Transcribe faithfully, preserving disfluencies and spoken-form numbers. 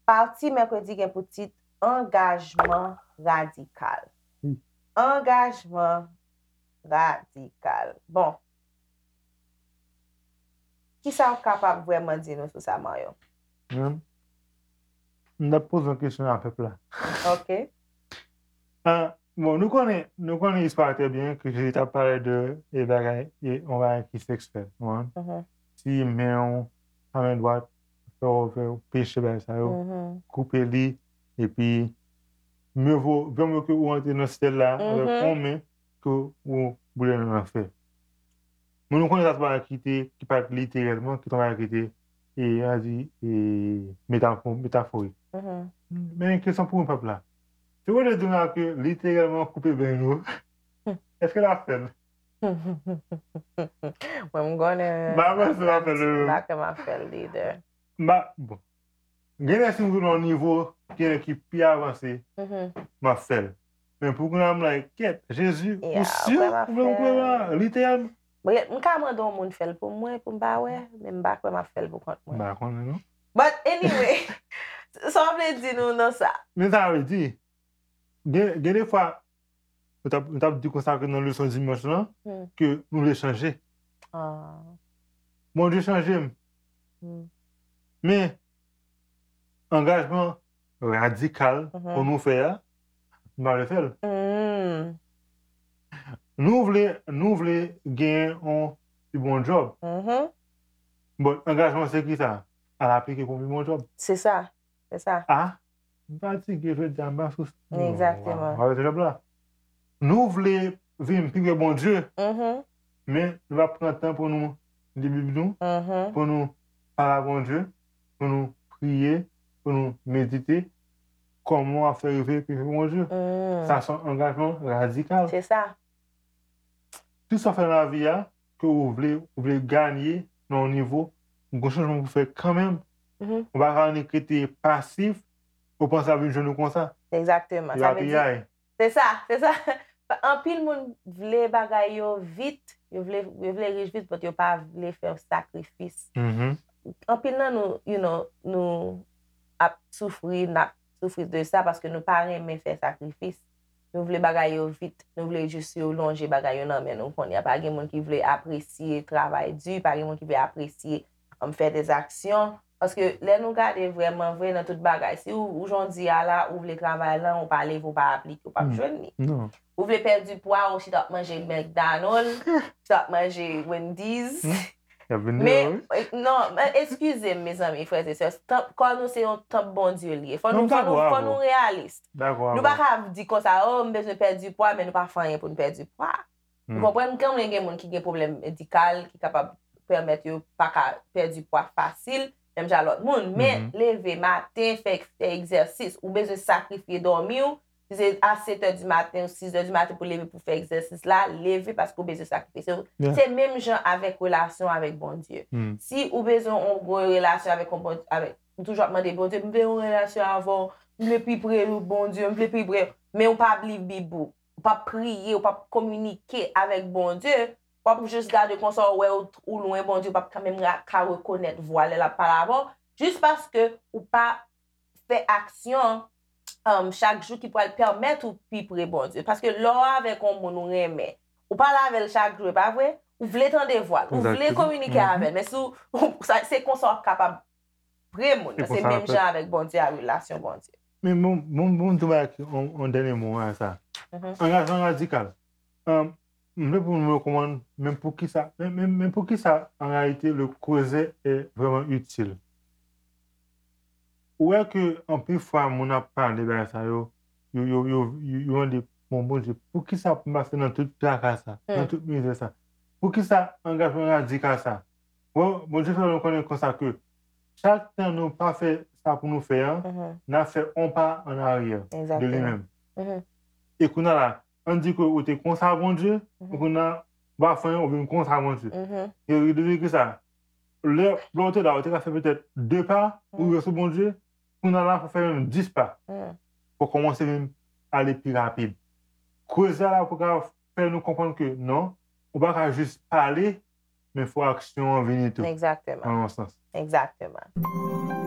Pati mèkredi gen pou tit Angajman radikal. Angajman radikal. Bon, kisa w kapab vrèman di nou sou sa, Mario? Menm, m t ap poze yon kesyon a pèp la. Ok. Ah, bon, nou konnen, nou konnen istwa trè byen ke Jezi t ap pale de e bagay, e yon bagay ki seksyèl. Ou konprann? Si men w, pa men dwat, fè w fè w peche bagay sa yo, koupe li, epi mye vo, vè mye ke ou antre nan syèl la avèk yon men ke ou boule nan lanfè. Men nou konnen sa se bagay ki te, ki pa t literèlman, ki te yon bagay ki te, e, a di, e, metafo, metaforik. Men kesyon pou mwen pèp la. Se ou te di la ke literèlman koupe ben yo, èske l ap fè l? Mwen m konnen. M pa panse l ap fè l. M pa kwè m ap fè l lidè. M pa, bon. Gen lè si m rive nan yon nivo ki, ki pi avanse, m ap fè l. Men pou kounye a m like, kèt, Jezi, ou si ou vle m koupe ben la, literèlman? Bon, m ka mande yon moun fè l pou mwen, pou m pa wè, men m pa kwè m ap fè l pou kont mwen. M pa konnen non. But anyway, sa w vle di nou nan sa? Men sa vle di, gen, gen de fwa, nou t ap, nou t ap di konsa ke nan leson dimanch lan, ke nou vle chanje. Bondye chanje m. Men, angajman radikal pou nou fè a, nou pa vle fè l. Nou vle, nou vle gen yon pi bon djòb. Bon, angajman se ki sa? Al aplike pou yon pi bon djòb. Se sa. Se sa. Ah, m fatige jodi a, m pa sou. Egzakteman. Avèk jòb la. Nou vle vin pi pre Bondye, men nou pa pran tan pou nou li Bib nou, pou nou pale a Bondye, pou nou priye, pou nou medite kòman w ap fè rive pi pre Bondye. Sa se yon angajman radikal. Se sa. Tout sa w fè nan lavi a, ke ou vle, ou vle ganye nan yon nivo, gon chanjman pou fè kanmenm. Ou pa ka annik rete pasif, ou panse ap vin jwenn ou konsa. Egzakteman. Sa vle di, se sa, se sa. Anpil moun vle bagay yo vit, yo vle, yo vle rich vit, but yo pa vle fè sakrifis. Anpil nan nou, you know, nou ap soufri, n ap soufri de sa paske nou pa renmen fè sakrifis. Nou vle bagay yo vit, nou vle jis yo lonje bagay yo nan men nou kounye a. Pa gen moun ki vle apresye travay di, pa gen moun ki vle apresye, um, fè dèzaksyon. Paske lè nou gade vrèman vre nan tout bagay, si ou, ou jan w di a la, ou vle travay lan, ou pa leve, ou pa aplike, ou p ap jwenn li. Ou vle pèdi pwa, ou chita ap manje McDonald, chita ap manje Wendy's. Men, non, men eskize m, mezanmi, frè e sè. Kò nou se yon tanp Bondye li ye. Fò nou, fò nou, fò nou reyalis. Nou pa ka di konsa, o, m bezwen pèdi pwa, men nou pa fè anyen pou n pèdi pwa. Ou konprann? Kanmenm gen moun ki gen pwoblèm medikal, ki kapab pèmèt yo pa ka pèdi pwa fasil, menm jan lòt moun. Men, leve maten, fè, fè egzèsis, ou bezwen sakrifye dòmi w, si se a sèt è di maten ou sis è di maten pou leve pou fè egzèsis la, leve paske ou bezwen sakrifye. Se, se menm jan avèk relasyon avèk Bondye. Si ou bezwen yon gwo relasyon avèk yon Bondye, avèk, ou toujou ap mande Bondye, "M vle yon relasyon avè w, m vle pi pre Bondye, m vle pi pre," men ou p ap li Bib ou, ou p ap priye, ou p ap kominike avèk Bondye, w ap jis gade konsa, ou wè ou, ou lwen Bondye, ou p ap kanmenm ka rekonèt vwa l lè l ap pale avè w, jis paske ou pa fè aksyon, um, chak jou ki pral pèmèt ou pi pre Bondye. Paske lè w avèk yon moun ou renmen, ou pale avè l chak jou, e pa vre? Ou vle tande vwa l, ou vle kominike avè l, men si w, se konsa w ap kapab pre moun nan. Se menm jan avèk Bondye a, relasyon Bondye. Men bon, bon, bon, m tou bay yon, yon dènye mo a sa. Angajman radikal. Um, m vle pou nou konprann, men poukisa, men, men, men poukisa, an reyalite, le creuset est vraiment utile. Ou wè ke anpil fwa moun ap pale bagay sa yo, yo, yo, yo, yo, yo mande, "Bon, Bondye, poukisa pou m pase nan tout traka sa, nan tout mizè sa? Poukisa angajman radikal sa?" Bon, Bondye fè nou konnen konsa ke chak tan nou pa fè sa pou nou fè an, n ap fè yon pa an aryè de li menm. E kounye a la, ann di ke ou te konsa Bondye, e kounye a, w pa fè anyen, ou vin konsa Bondye. E li di ki sa? Lè, lè w te la, ou te ka fè petèt de pa pou rive sou Bondye, kounye a la, fò w fè menm dis pa. Fò w kòmanse vin ale pi rapid. Koze a la pou ka fè nou konprann ke non, ou pa ka jis pale, men fò aksyon an vini tou, Egzakteman. Nan yon sans. Egzakteman.